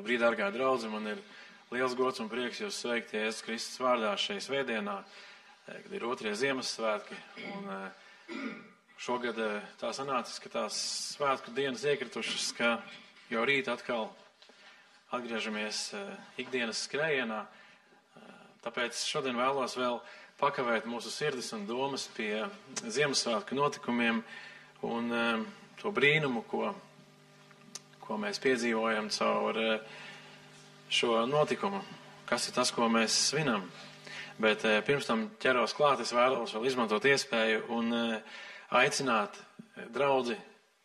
Labrīt, dārgā draudze, man ir liels gods un prieks jūs sveikt Jēzus Kristus vārdā šai svētdienā, kad ir 2. Ziemassvētki. Un šogad tā sanācis, ka tās svētku dienas iekritušas, ka jau rīt atkal atgriežamies ikdienas skrējienā. Tāpēc šodien vēlos vēl pakavēt mūsu sirdis un domas pie Ziemassvētku notikumiem un to brīnumu, ko mēs piedzīvojam caur šo notikumu. Kas ir tas, ko mēs svinam? Bet pirms tam ķeros klāt, es vēlos vēl izmantot iespēju un aicināt draudzi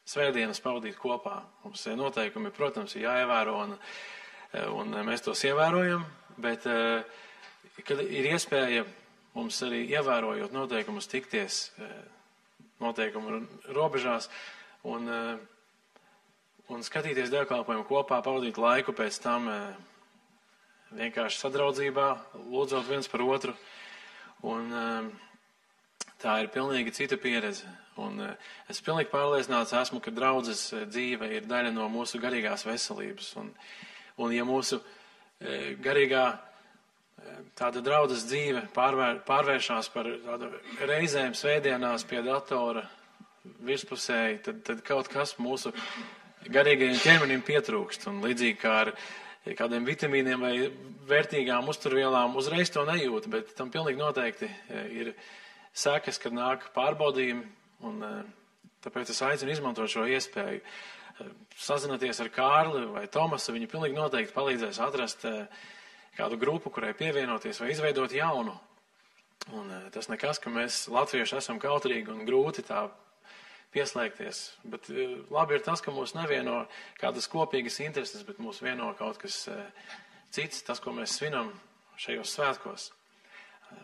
svētdienas pavadīt kopā. Mums noteikumi, protams, ir jāievēro un mēs tos ievērojam, bet kad ir iespēja mums arī ievērojot noteikumus tikties noteikumu robežās un skatīties dievkalpojumu kopā, pavadīt laiku pēc tam vienkārši sadraudzībā, lūdzot viens par otru. Un tā ir pilnīgi cita pieredze. Un es pilnīgi pārliecināts esmu, ka draudzes dzīve ir daļa no mūsu garīgās veselības. Un ja mūsu garīgā tāda draudzes dzīve pārvēršās par tādu reizēm svētdienās pie datora virspusēji, tad kaut kas mūsu garīgajiem ķermenim pietrūkst. Un līdzīgi kā ar kādiem vitamīniem vai vērtīgām uzturvielām uzreiz to nejūt, bet tam pilnīgi noteikti ir sekas, kad nāk pārbaudījumi. Un tāpēc es aicinu izmantot šo iespēju. Sazināties ar Kārli vai Tomasu, viņi pilnīgi noteikti palīdzēs atrast kādu grupu, kurai pievienoties vai izveidot jaunu. Un tas nekas, ka mēs latvieši esam kautrīgi un grūti tā pieslēgties. Bet labi ir tas, ka mūs nevieno kādas kopīgas intereses, bet mūs vieno kaut kas cits, tas, ko mēs svinam šajos svētkos.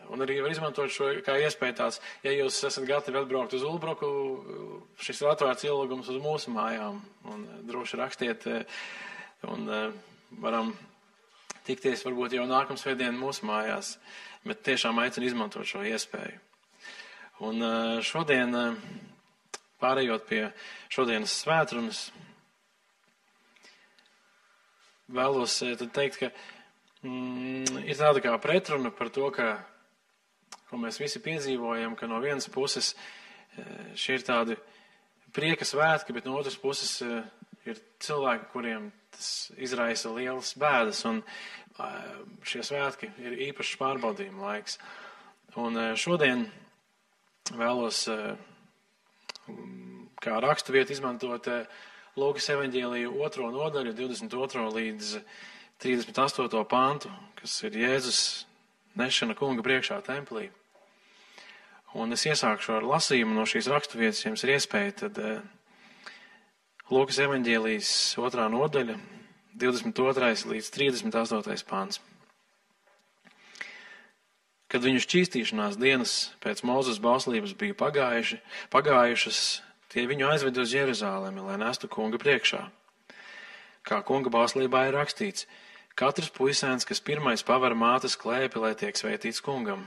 Un arī var izmantot šo kā iespēju tāds, ja jūs esat gatavi atbraukt uz Ulbruku, šis ir atvērts ielūgums uz mūsu mājām. Un droši rakstiet un varam tikties varbūt jau nākamā svētdiena mūsu mājās, bet tiešām aicinu izmantot šo iespēju. Un šodien, pārējot pie šodienas svētrunas, vēlos tad teikt, ka ir tāda kā pretruna par to, ko mēs visi piedzīvojam, ka no vienas puses šie ir tādi prieka svētki, bet no otras puses ir cilvēki, kuriem tas izraisa lielas bēdas, un šie svētki ir īpašs pārbaudījuma laiks. Un šodien vēlos kā raksturvietu izmantot Lūkas evaņģēliju 2. nodaļu, 22. līdz 38. pantu, kas ir Jēzus nešana kunga priekšā templī. Un es iesākšu ar lasījumu no šīs raksturvietas, jums ir iespēja, tad Lūkas evaņģēlijas 2. nodaļa, 22. līdz 38. pants. Kad viņu šķīstīšanās dienas pēc Mūzes bauslības bija pagājušas, tie viņu aizved uz Jeruzālemi, lai nestu kunga priekšā. Kā kunga bauslībā ir rakstīts, katrs puisēns, kas pirmais paver mātes klēpi, lai tiek svētīts kungam,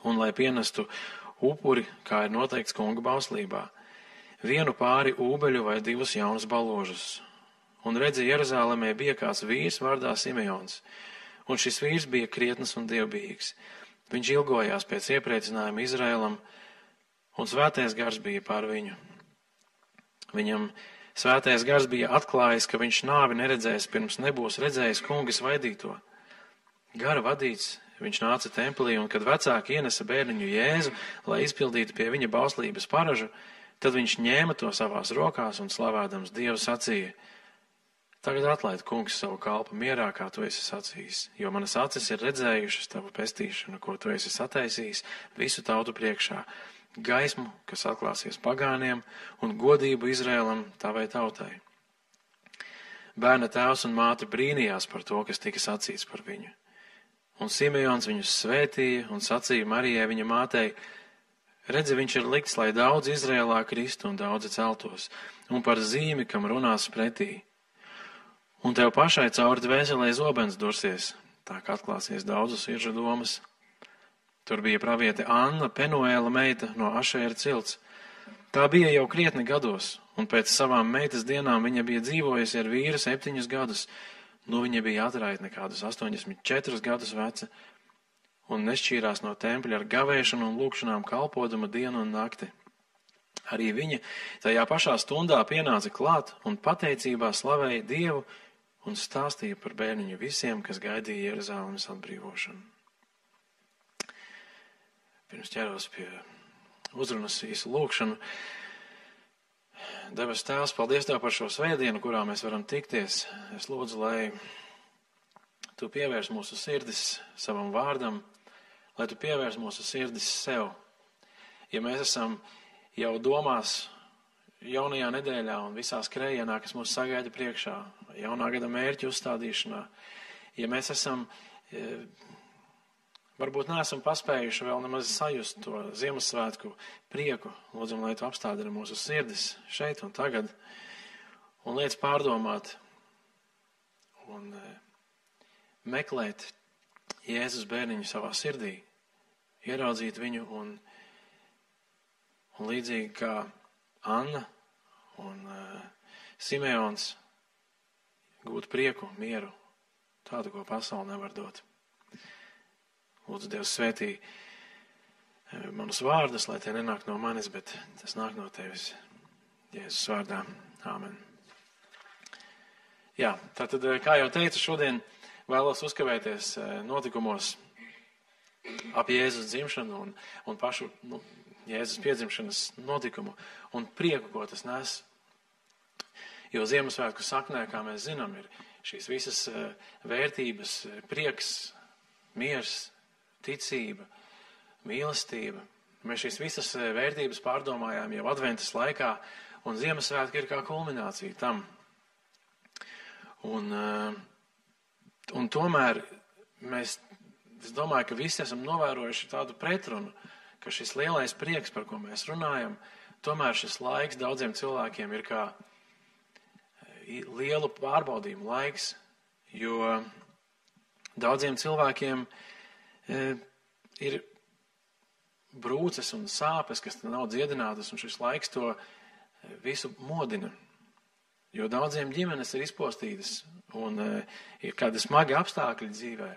un lai pienestu upuri, kā ir noteikts kunga bauslībā, vienu pāri ūbeļu vai 2 jaunus baložus. Un redzi, Jeruzālēmē bija kāds vīrs vārdā Simeons, un šis vīrs bija krietns un dievbijīgs. Viņš ilgojās pēc iepriecinājuma Izraēlam, un svētais gars bija pār viņu. Viņam svētais gars bija atklājis, ka viņš nāvi neredzēs, pirms nebūs redzējis kunga svaidīto. Gara vadīts, viņš nāca templī, un kad vecāki ienesa bērniņu Jēzu, lai izpildītu pie viņa bauslības paražu, tad viņš ņēma to savās rokās un slavādams Dievu sacīja: Tagad atlaid, kungs, savu kalpu mierā, kā tu esi sacījis, jo manas acis ir redzējušas tavu pestīšanu, ko tu esi sataisījis visu tautu priekšā, gaismu, kas atklāsies pagāniem, un godību Izrēlam tavai tautai. Bērna tēvs un māte brīnījās par to, kas tika sacīts par viņu. Un Simeons viņus svētīja un sacīja Marijai viņa mātei: Redzi, viņš ir likts, lai daudz Izrēlā kristu un daudzi celtos, un par zīmi, kam runās pretī. Un tev pašai cauri dvēselē zobens dursies, tā kā atklāsies daudzu sirdžu domas. Tur bija praviete Anna, Penuēla meita no Ašēra cilts. Tā bija jau krietni gados, un pēc savām meitas dienām viņa bija dzīvojusi ar vīru 7 gadus, Viņa bija atraitne kādus 84 gadus veca un nešķīrās no tempļa ar gavēšanu un lūkšanām kalpodama dienu un nakti. Arī viņa tajā pašā stundā pienāca klāt un pateicībā slavēja Dievu un stāstīja par bērniņu visiem, kas gaidīja Jeruzalemes atbrīvošanu. Pirms ķeros pie uzrunas īsu lūkšanu. Debes Tēvs, paldies Tev par šo svētdienu, kurā mēs varam tikties. Es lūdzu, lai Tu pievērs mūsu sirdis savam vārdam, lai Tu pievērs mūsu sirdis sev. Ja mēs esam jau domās jaunajā nedēļā un visā skrējienā, kas mūs sagaida priekšā, jaunā gada mērķu uzstādīšanā, ja mēs esam, varbūt neesam paspējuši vēl nemaz sajust to Ziemassvētku prieku, lūdzam, lai Tu apstādini mūsu sirdis šeit un tagad, un liec pārdomāt un meklēt Jēzus bērniņu savā sirdī, ieraudzīt viņu un līdzīgi kā Anna un Simeons gūt prieku, mieru, tādu, ko pasaule nevar dot. Lūdzu, Dievs svētī manus vārdus, lai tie nenāk no manis, bet tas nāk no Tevis. Jēzus vārdā. Āmen. Jā, tātad, kā jau teicu, šodien vēlos uzkavēties notikumos ap Jēzus dzimšanu un pašu Jēzus piedzimšanas notikumu un prieku, ko tas nes. Jo Ziemassvētku saknē, kā mēs zinām, ir šīs visas vērtības, prieks, miers, ticība, mīlestība. Mēs šīs visas vērtības pārdomājām jau adventas laikā, un Ziemassvētki ir kā kulminācija tam. Un tomēr es domāju, ka visi esam novērojuši tādu pretrunu, ka šis lielais prieks, par ko mēs runājam, tomēr šis laiks daudziem cilvēkiem ir kā lielu pārbaudījumu laiks, jo daudziem cilvēkiem ir brūces un sāpes, kas nav dziedinātas, un šis laiks to visu modina. Jo daudziem ģimenes ir izpostītas un ir kādi smagi apstākļi dzīvē.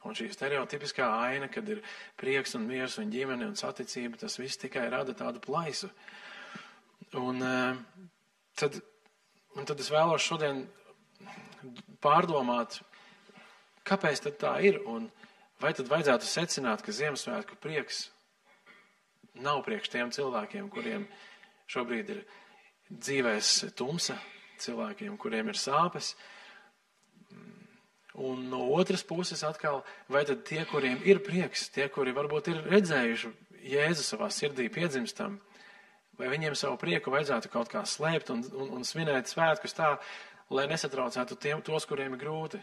Un šī stereotipiskā aina, kad ir prieks un miers un ģimene un saticība, tas viss tikai rada tādu plaisu. Un tad es vēlos šodien pārdomāt, kāpēc tad tā ir, un vai tad vajadzētu secināt, ka Ziemassvētku prieks nav priekš tiem cilvēkiem, kuriem šobrīd ir dzīvēs tumsa, cilvēkiem, kuriem ir sāpes. Un no otras puses atkal, vai tad tie, kuriem ir prieks, tie, kuri varbūt ir redzējuši Jēzu savā sirdī piedzimstam, vai viņiem savu prieku vajadzētu kaut kā slēpt un svinēt svētkus tā, lai nesatraucētu tos, kuriem ir grūti.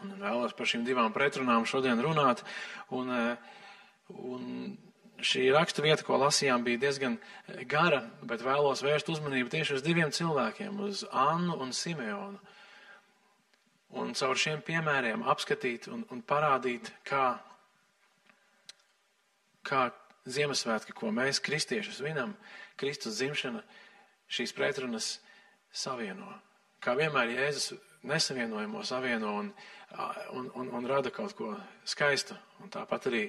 Un vēlos par šīm divām pretrunām šodien runāt, un šī rakstu vieta, ko lasījām, bija diezgan gara, bet vēlos vērst uzmanību tieši uz diviem cilvēkiem, uz Annu un Simeonu. Un caur šiem piemēriem apskatīt un parādīt, kā Ziemassvētki, ko mēs kristieši svinam, Kristus dzimšana, šīs pretrunas savieno. Kā vienmēr Jēzus nesavienojamo savieno un rada kaut ko skaistu. Un tāpat arī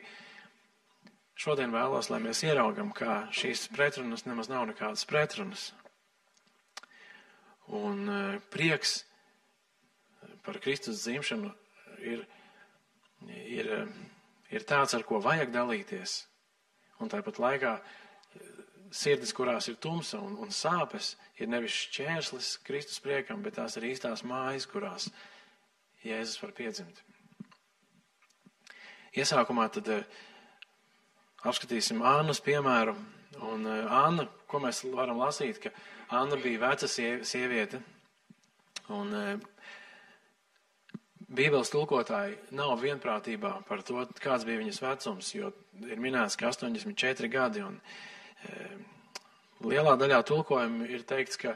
šodien vēlos, lai mēs ieraugam, kā šīs pretrunas nemaz nav nekādas pretrunas. Un prieks par Kristus dzimšanu ir tāds, ar ko vajag dalīties. Un tāpat laikā sirdis, kurās ir tumsa un sāpes, ir nevis šķērslis Kristus priekam, bet tās ir īstās mājas, kurās Jēzus var piedzimt. Iesākumā tad apskatīsim Annas piemēru. Un Anna, ko mēs varam lasīt, ka Anna bija veca sieviete. Un Bībeles tulkotāji nav vienprātībā par to, kāds bija viņas vecums, jo ir minēts, ka 84 gadi, un lielā daļā tulkojumu ir teikts, ka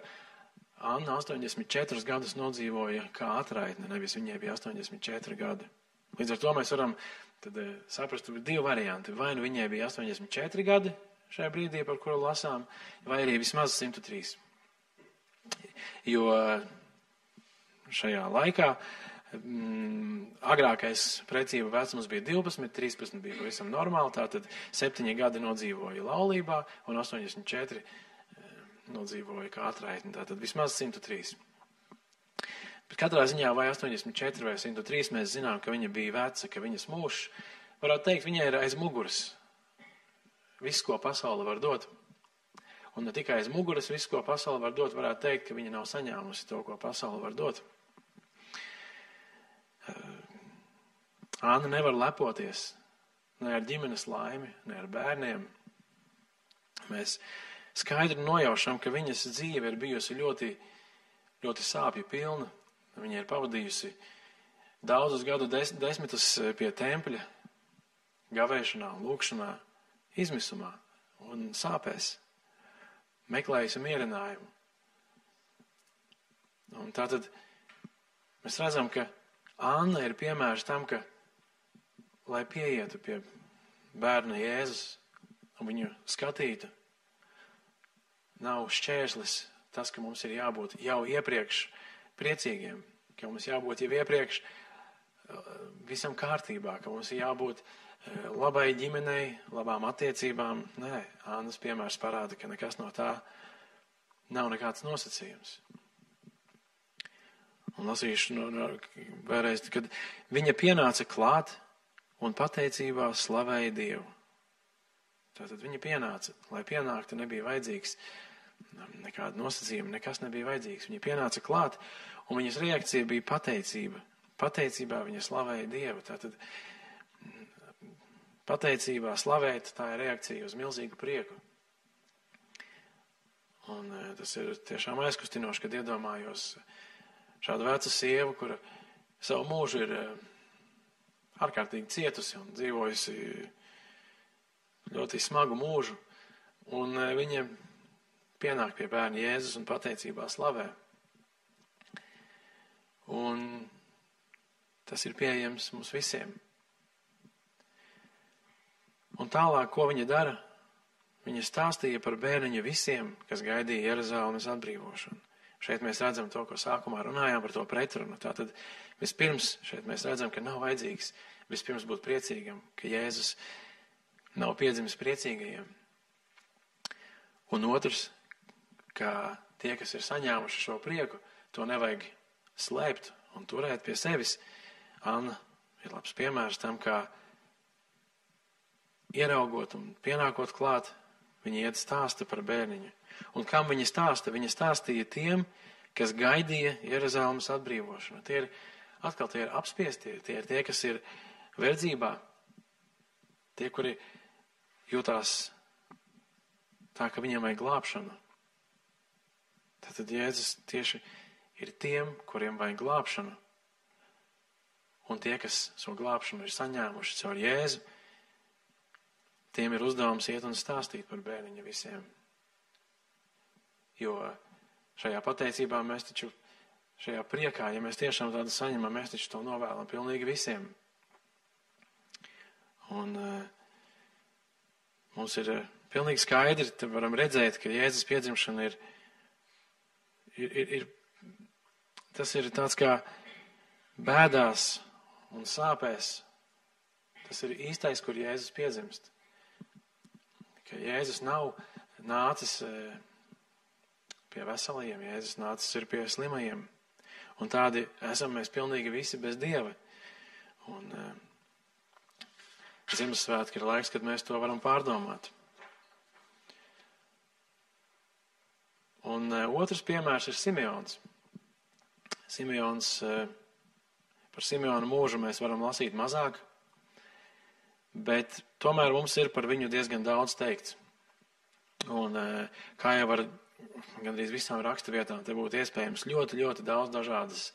Anna 84 gadus nodzīvoja kā atraitne, nevis viņai bija 84 gadi. Līdz ar to mēs varam tad saprast, ka ir divi varianti. Vai nu viņai bija 84 gadi šajā brīdī, par kuru lasām, vai arī vismaz 103. Jo šajā laikā. Agrākais precība vecums bija 12, 13 bija pavisam normāli, tātad 7 gadi nodzīvoja laulībā un 84 nodzīvoja kā atraitni, tātad vismaz 103. Bet katrā ziņā vai 84 vai 103 mēs zinām, ka viņa bija veca, ka viņas mūžs, varētu teikt, viņai ir aiz muguras viss, ko pasaule var dot. Un ne tikai aiz muguras viss, ko pasaule var dot, varētu teikt, ka viņa nav saņēmusi to, ko pasaule var dot. Anna nevar lepoties ne ar ģimenes laimi, ne ar bērniem. Mēs skaidri nojaušam, ka viņas dzīve ir bijusi ļoti, ļoti sāpju pilna. Viņa ir pavadījusi daudzus gadu desmitus pie tempļa, gavēšanā, lūkšanā, izmisumā un sāpēs, meklējusi mierinājumu. Un tātad mēs redzam, ka Anna ir piemērs tam, ka, lai pieietu pie bērna Jēzus un viņu skatītu, nav šķērslis tas, ka mums ir jābūt jau iepriekš priecīgiem, ka mums jābūt jau iepriekš visam kārtībā, ka mums ir jābūt labai ģimenei, labām attiecībām. Nē, Annas piemērs parāda, ka nekas no tā nav nekāds nosacījums. Un lasīšu vēlreiz, kad viņa pienāca klāt un pateicībā slavēja Dievu. Tātad viņa pienāca, lai pienāktu, nebija vajadzīgs nekāda nosacījuma, nekas nebija vajadzīgs. Viņa pienāca klāt, un viņas reakcija bija pateicība. Pateicībā viņa slavēja Dievu. Tātad pateicībā slavēt, tā ir reakcija uz milzīgu prieku. Un tas ir tiešām aizkustinoši, kad iedomājos šādu vecu sievu, kura savu mūžu ir ārkārtīgi cietusi un dzīvojusi ļoti smagu mūžu, un viņa pienāk pie bērna Jēzus un pateicībā slavē. Un tas ir pieejams mums visiem. Un tālāk, ko viņa dara? Viņa stāstīja par bērniņu visiem, kas gaidīja Jeruzalemes atbrīvošanu. Šeit mēs redzam to, ko sākumā runājām par to pretrunu. Tātad vispirms šeit mēs redzam, ka nav vajadzīgs vispirms būt priecīgam, ka Jēzus nav piedzimis priecīgajiem. Un otrs, ka tie, kas ir saņēmuši šo prieku, to nevajag slēpt un turēt pie sevis. Anna ir labs piemērs tam, kā ieraugot un pienākot klāt, viņa iet stāsta par bērniņu. Un kam viņa stāsta? Viņa stāstīja tiem, kas gaidīja Jeruzalemes atbrīvošanu. Tie ir apspiestie, tie ir tie, kas ir verdzībā, tie, kuri jūtās tā, ka viņiem vajag glābšanu. Tātad Jēzus tieši ir tiem, kuriem vajag glābšanu. Un tie, kas šo glābšanu ir saņēmuši caur Jēzu, tiem ir uzdevums iet un stāstīt par bērniņu visiem. Jo šajā pateicībā mēs taču, šajā priekā, ja mēs tiešām tādu saņemam, mēs taču to novēlam pilnīgi visiem. Un mums ir pilnīgi skaidri, te varam redzēt, ka Jēzus piedzimšana tas ir tāds kā bēdās un sāpēs. Tas ir īstais, kur Jēzus piedzimst. Ka Jēzus nav nācis pie veselajiem, Jēzus nācis ir pie slimajiem. Un tādi esam mēs pilnīgi visi bez Dieva. Un Ziemassvētki ir laiks, kad mēs to varam pārdomāt. Un otrs piemērs ir Simeons. Par Simeonu mūžu mēs varam lasīt mazāk, bet tomēr mums ir par viņu diezgan daudz teikts. Un kā jau ar gandrīz visām raksturvietām, te būtu iespējams ļoti, ļoti daudz dažādas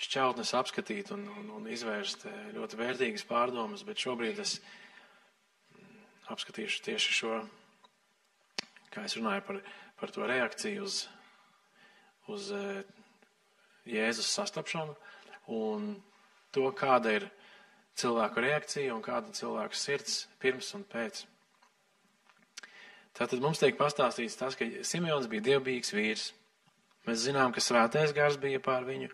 šķautnes apskatīt un izvērst ļoti vērtīgas pārdomas, bet šobrīd es apskatīšu tieši šo, kā es runāju par to reakciju uz Jēzus sastapšanu un to, kāda ir cilvēku reakcija un kāda cilvēku sirds pirms un pēc. Tātad mums tiek pastāstīts tas, ka Simeons bija dievbijīgs vīrs. Mēs zinām, ka svētais gars bija pār viņu,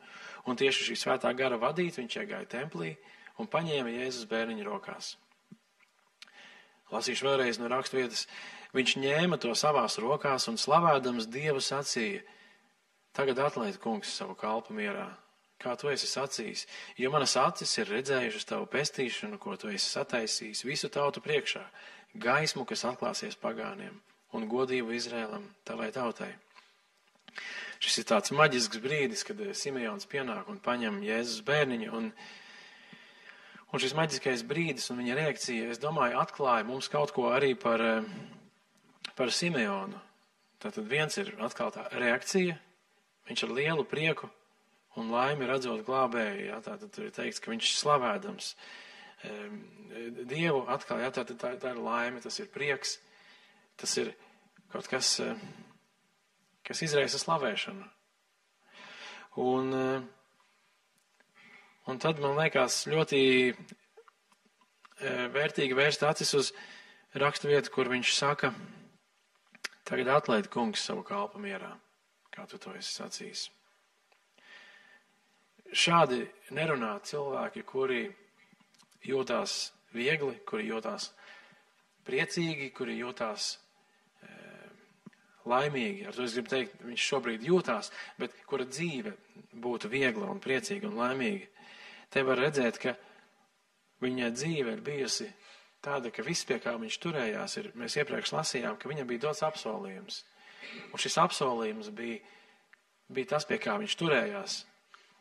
un tieši šī svētā gara vadīt viņš iegāja templī un paņēma Jēzus bērniņu rokās. Lasīšu vēlreiz no raksturvietas. Viņš ņēma to savās rokās un slavādams Dievu sacīja: Tagad atlaid, kungs, savu kalpu mierā, kā tu esi sacījis, jo manas acis ir redzējušas tavu pestīšanu, ko tu esi sataisījis visu tautu priekšā, gaismu, kas atklāsies pagāniem, un godību Izrēlam, tavai tautai. Šis ir tāds maģisks brīdis, kad Simeons pienāk un paņem Jēzus bērniņu, un šis maģiskais brīdis un viņa reakcija, es domāju, atklāja mums kaut ko arī par Simeonu. Tātad viens ir atkal tā reakcija, viņš ar lielu prieku un laimi redzot glābēju, jā, tātad tur ir teikts, ka viņš slavādams Dievu atkal, jā, tā ir laime, tas ir prieks, tas ir kaut kas, kas izraisa slavēšanu. Un tad man liekas ļoti vērtīgi vērst acis uz raksturvietu, kur viņš saka: Tagad atlaid, kungs, savu kalpu mierā, kā tu to esi sacījis. Šādi nerunā cilvēki, kuri jūtās viegli, kuri jūtās priecīgi, kuri jūtās laimīgi. Ar to es gribu teikt, viņš šobrīd jūtās, bet kura dzīve būtu viegla un priecīga un laimīga. Te var redzēt, ka viņa dzīve ir bijusi tāda, ka viss, pie kā viņš turējās, mēs iepriekš lasījām, ka viņam bija dots apsolījums. Un šis apsolījums bija tas, pie kā viņš turējās,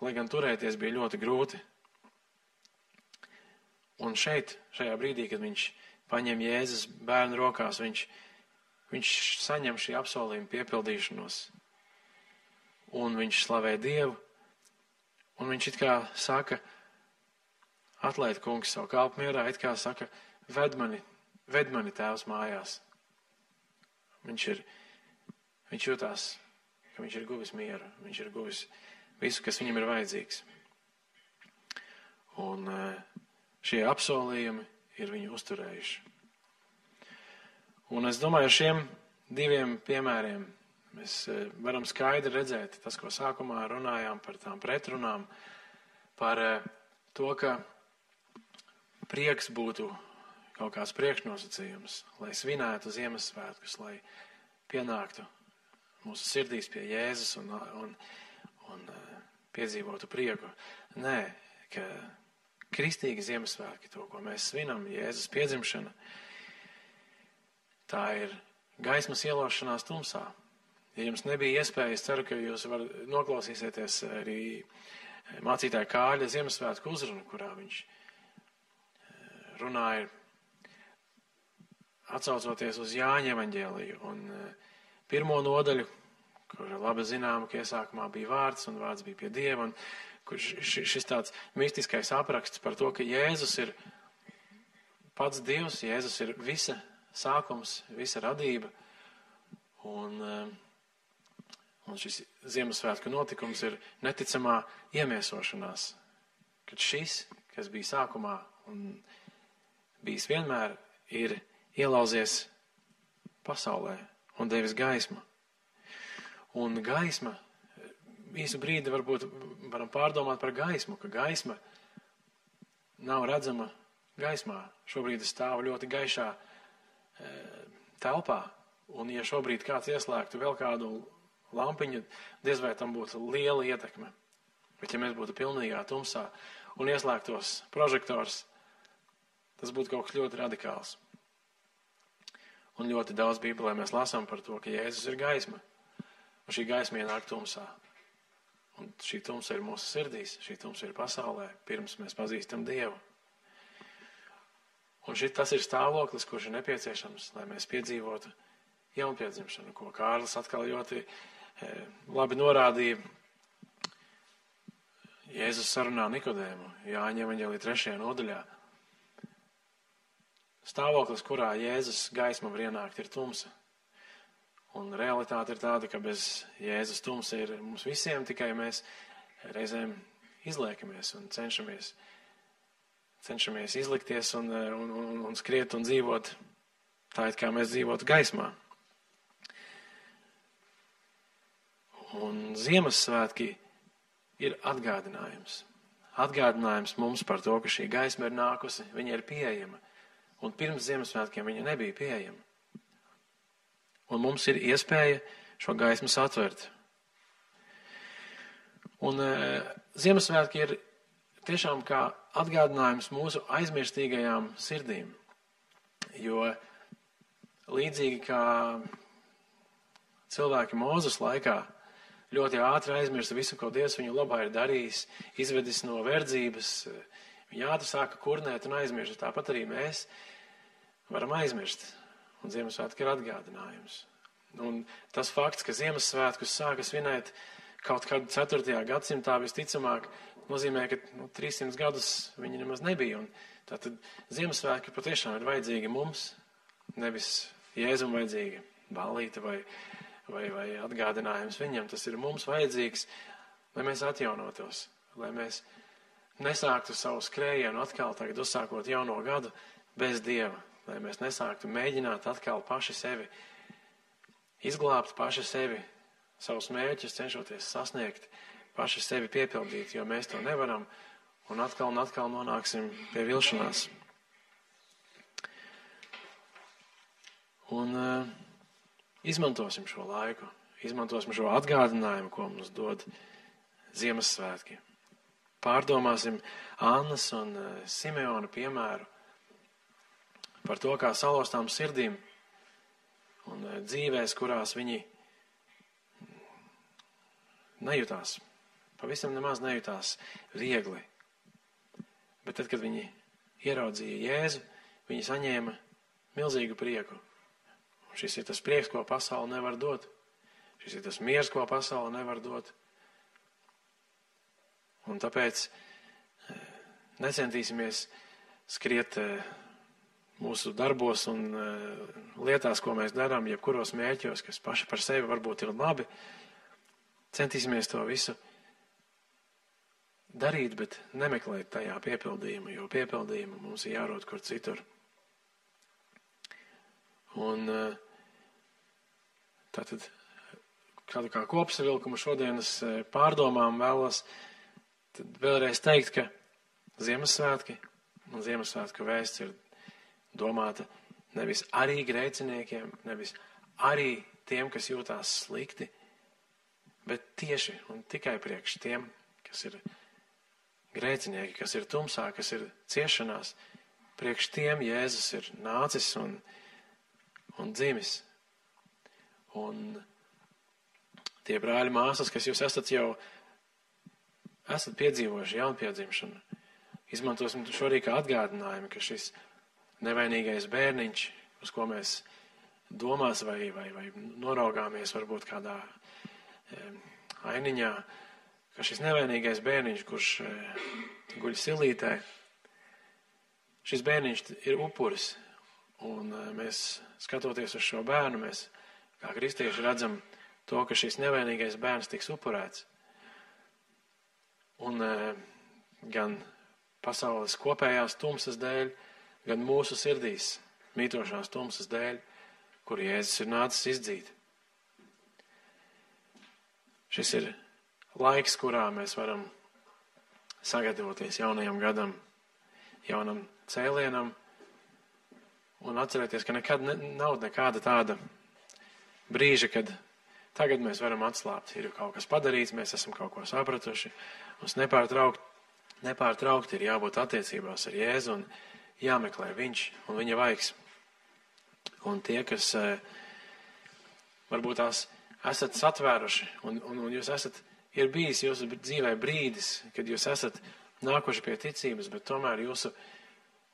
lai gan turēties bija ļoti grūti. Un šeit, šajā brīdī, kad viņš paņem Jēzus bērnu rokās, viņš saņem šī apsolījuma piepildīšanos. Un viņš slavē Dievu, un viņš it kā saka: Atlaid, kungs, savu kalpu mierā, it kā saka: Ved mani tēvs mājās. Viņš jūtās, ka viņš ir guvis mieru, viņš ir guvis visu, kas viņam ir vajadzīgs. Un šie apsolījumi ir viņu uzturējuši. Un es domāju, ar šiem diviem piemēriem mēs varam skaidri redzēt tas, ko sākumā runājām par tām pretrunām, par to, ka prieks būtu kaut kāds priekšnosacījums, lai svinētu Ziemassvētkus, lai pienāktu mūsu sirdīs pie Jēzus un piedzīvotu prieku. Nē, ka kristīgi Ziemassvētki, to, ko mēs svinam, Jēzus piedzimšana, tā ir gaismas ielošanās tumsā. Ja jums nebija iespēja, es ceru, ka jūs noklausīsieties arī mācītāja Kāļa Ziemassvētku uzrunu, kurā viņš runāja atsaucoties uz Jāņa evaņģēliju un pirmo nodaļu, kur labi zinām, ka iesākumā bija vārds un vārds bija pie Dieva, un kur šis tāds mistiskais apraksts par to, ka Jēzus ir pats Dievs, Jēzus ir visa sākums, visa radība, un šis Ziemassvētku notikums ir neticamā iemiesošanās, kad šis, kas bija sākumā un bijis vienmēr, ir ielauzies pasaulē un devis gaismu. Un gaisma, īsu brīdi varbūt varam pārdomāt par gaismu, ka gaisma nav redzama gaismā. Šobrīd es stāvu ļoti gaišā telpā, un ja šobrīd kāds ieslēgtu vēl kādu lampiņu, diez vai tam būtu liela ietekme. Bet ja mēs būtu pilnīgā tumsā un ieslēgtos prožektors, tas būtu kaut kas ļoti radikāls. Un ļoti daudz Bībelē mēs lasām par to, ka Jēzus ir gaisma. Un šī gaisma ienāk tumsā. Un šī tumsa ir mūsu sirdīs, šī tumsa ir pasaulē, pirms mēs pazīstam Dievu. Un tas ir stāvoklis, kurš ir nepieciešams, lai mēs piedzīvotu jaunpiedzimšanu, ko Kārlis atkal ļoti labi norādīja. Jēzus sarunā Nikodēmu, Jāņa evaņģēlija 3. nodaļā. Stāvoklis, kurā Jēzus gaisma var ienākt, ir tumsa. Un realitāte ir tāda, ka bez Jēzus tumsa ir mums visiem, tikai mēs reizēm izliekamies un cenšamies izlikties un skriet un dzīvot tā, it kā mēs dzīvotu gaismā. Un Ziemassvētki ir atgādinājums. Atgādinājums mums par to, ka šī gaisma ir nākusi, viņa ir pieejama. Un pirms Ziemassvētkiem viņa nebija pieejama. Un mums ir iespēja šo gaismu satvert. Un Ziemassvētki ir tiešām kā atgādinājums mūsu aizmirstīgajām sirdīm. Jo līdzīgi kā cilvēki Mūzes laikā ļoti ātri aizmirsta visu, ko Dievs viņu labā ir darījis, izvedis no verdzības, viņi ātri sāka kurnēt un aizmirst. Tāpat arī mēs varam aizmirst. Un Ziemassvētki ir atgādinājums. Un tas fakts, ka Ziemassvētkus sāka svinēt kaut kādu 4. gadsimtā visticamāk, nozīmē, ka 300 gadus viņi nemaz nebija. Un tātad Ziemassvētki patiešām ir vajadzīgi mums, nevis Jēzum vajadzīgi ballīte vai atgādinājums viņam. Tas ir mums vajadzīgs, lai mēs atjaunotos, lai mēs nesāktu savu skrējienu atkal tagad uzsākot jauno gadu bez Dieva. Lai mēs nesāktu mēģināt atkal paši sevi izglābt, paši sevi, savus mērķus cenšoties sasniegt, paši sevi piepildīt, jo mēs to nevaram un atkal nonāksim pie vilšanās. Un izmantosim šo laiku, izmantosim šo atgādinājumu, ko mums dod Ziemassvētki. Pārdomāsim Annas un Simeona piemēru par to, kā salauztām sirdīm un dzīvēs, kurās viņi nejūtās, pavisam nemaz nejūtās viegli. Bet tad, kad viņi ieraudzīja Jēzu, viņi saņēma milzīgu prieku. Un šis ir tas prieks, ko pasaule nevar dot. Šis ir tas miers, ko pasaule nevar dot. Un tāpēc necentīsimies skriet mūsu darbos un lietās, ko mēs darām, jebkuros mērķos, kas paši par sevi varbūt ir labi, centīsimies to visu darīt, bet nemeklēt tajā piepildījumu, jo piepildījumu mums ir jārod kur citur. Un tātad kādu kā kopsavilkumu šodienas pārdomām vēlos tad vēlreiz teikt, ka Ziemassvētki un Ziemassvētku vēsts ir domāta nevis arī grēciniekiem, nevis arī tiem, kas jūtās slikti, bet tieši un tikai priekš tiem, kas ir grēcinieki, kas ir tumsā, kas ir ciešanās. Priekš tiem Jēzus ir nācis un dzimis. Un tie brāļi māsas, kas jūs esat piedzīvojuši jaunpiedzimšanu, izmantosim šo arī kā atgādinājumu, ka šis nevainīgais bērniņš, uz ko mēs domās vai noraugāmies varbūt kādā ainiņā, ka šis nevainīgais bērniņš, kurš guļ silītē, šis bērniņš ir upuris. Un mēs, skatoties uz šo bērnu, mēs kā kristieši redzam to, ka šis nevainīgais bērns tiks upurēts. Un gan pasaules kopējās tumsas dēļ, gan mūsu sirdīs mītošās tumsas dēļ, kur Jēzus ir nācis izdzīt. Šis ir laiks, kurā mēs varam sagatavoties jaunajam gadam, jaunam cēlienam un atcerēties, ka nekad nav nekāda tāda brīža, kad tagad mēs varam atslābt. Ir kaut kas padarīts, mēs esam kaut ko sapratuši. Mums nepārtraukti ir jābūt attiecībās ar Jēzu un jāmeklē viņš un viņa vaigs. Un tie, kas varbūt tās esat satvēruši un jūs ir bijis jūsu dzīvē brīdis, kad jūs esat nākuši pie ticības, bet tomēr jūsu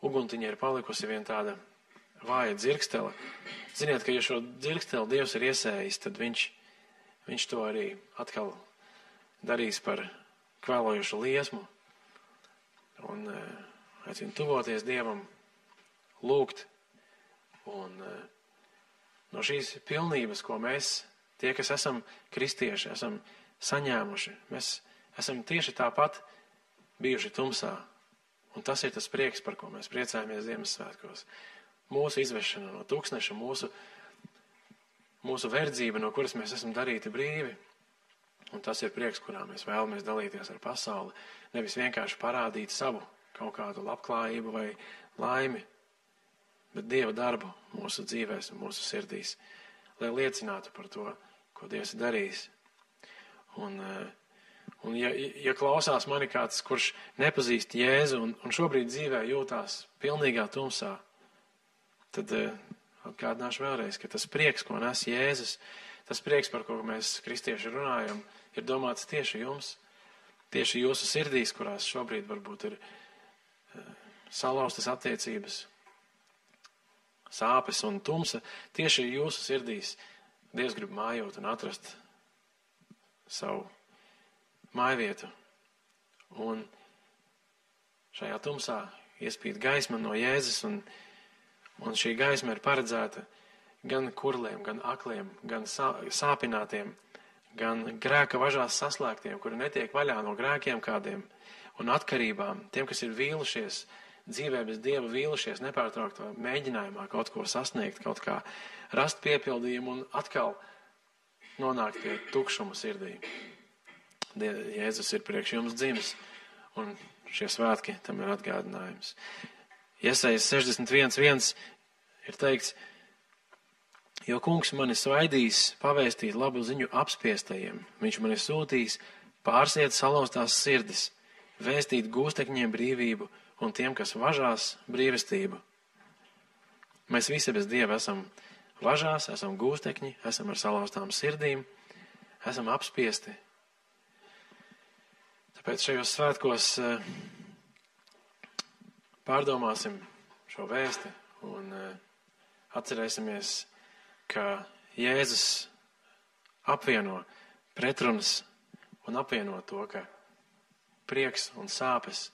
uguntiņa ir palikusi vien tāda vāja dzirkstele. Ziniet, ka ja šo dzirksteli Dievs ir iesējis, tad viņš to arī atkal darīs par kvēlojušu liesmu un aicinu tuvoties Dievam, lūgt un no šīs pilnības, ko mēs, tie, kas esam kristieši, esam saņēmuši, mēs esam tieši tāpat bijuši tumsā. Un tas ir tas prieks, par ko mēs priecājamies Ziemassvētkos. Mūsu izvešana no tūkstneša, mūsu verdzība, no kuras mēs esam darīti brīvi. Un tas ir prieks, kurā mēs vēlamies dalīties ar pasauli. Nevis vienkārši parādīt savu kaut kādu labklājību vai laimi, bet Dieva darbu mūsu dzīvēs un mūsu sirdīs, lai liecinātu par to, ko Dievs ir darījis. Un ja klausās mani kāds, kurš nepazīst Jēzu un šobrīd dzīvē jūtās pilnīgā tumsā, tad atgādināšu vēlreiz, ka tas prieks, ko nes Jēzus, tas prieks, par ko mēs kristieši runājam, ir domāts tieši jums, tieši jūsu sirdīs, kurās šobrīd varbūt ir salauztas attiecības, sāpes un tumsa. Tieši jūsu sirdīs Dievs grib mājot un atrast savu mājvietu. Un šajā tumsā iespīd gaisma no Jēzus, un šī gaisma ir paredzēta gan kurliem, gan akliem, gan sāpinātiem, gan grēka važās saslēgtiem, kuri netiek vaļā no grēkiem kādiem un atkarībām, tiem, kas ir vīlušies, dzīvē bez Dieva vīlušies, nepārtrauktā mēģinājumā kaut ko sasniegt, kaut kā rast piepildījumu un atkal nonākt pie tukšuma sirdī. Jēzus ir priekš jums dzimis, un šie svētki tam ir atgādinājums. Jesajas 61.1 ir teikts, jo kungs mani svaidīs pavēstīt labu ziņu apspiestajiem. Viņš mani sūtīs pārsiet salauztās sirdis, vēstīt gūstekņiem brīvību un tiem, kas važās, brīvestību. Mēs visi bez Dieva esam važās, esam gūstekņi, esam ar salauztām sirdīm, esam apspiesti. Tāpēc šajos svētkos pārdomāsim šo vēsti un atcerēsimies, ka Jēzus apvieno pretrunas un apvieno to, ka prieks un sāpes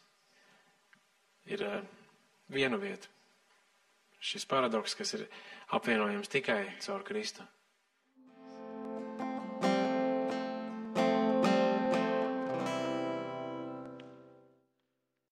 ir vienu vietu. Šis paradoks, kas ir apvienojams tikai caur Kristu.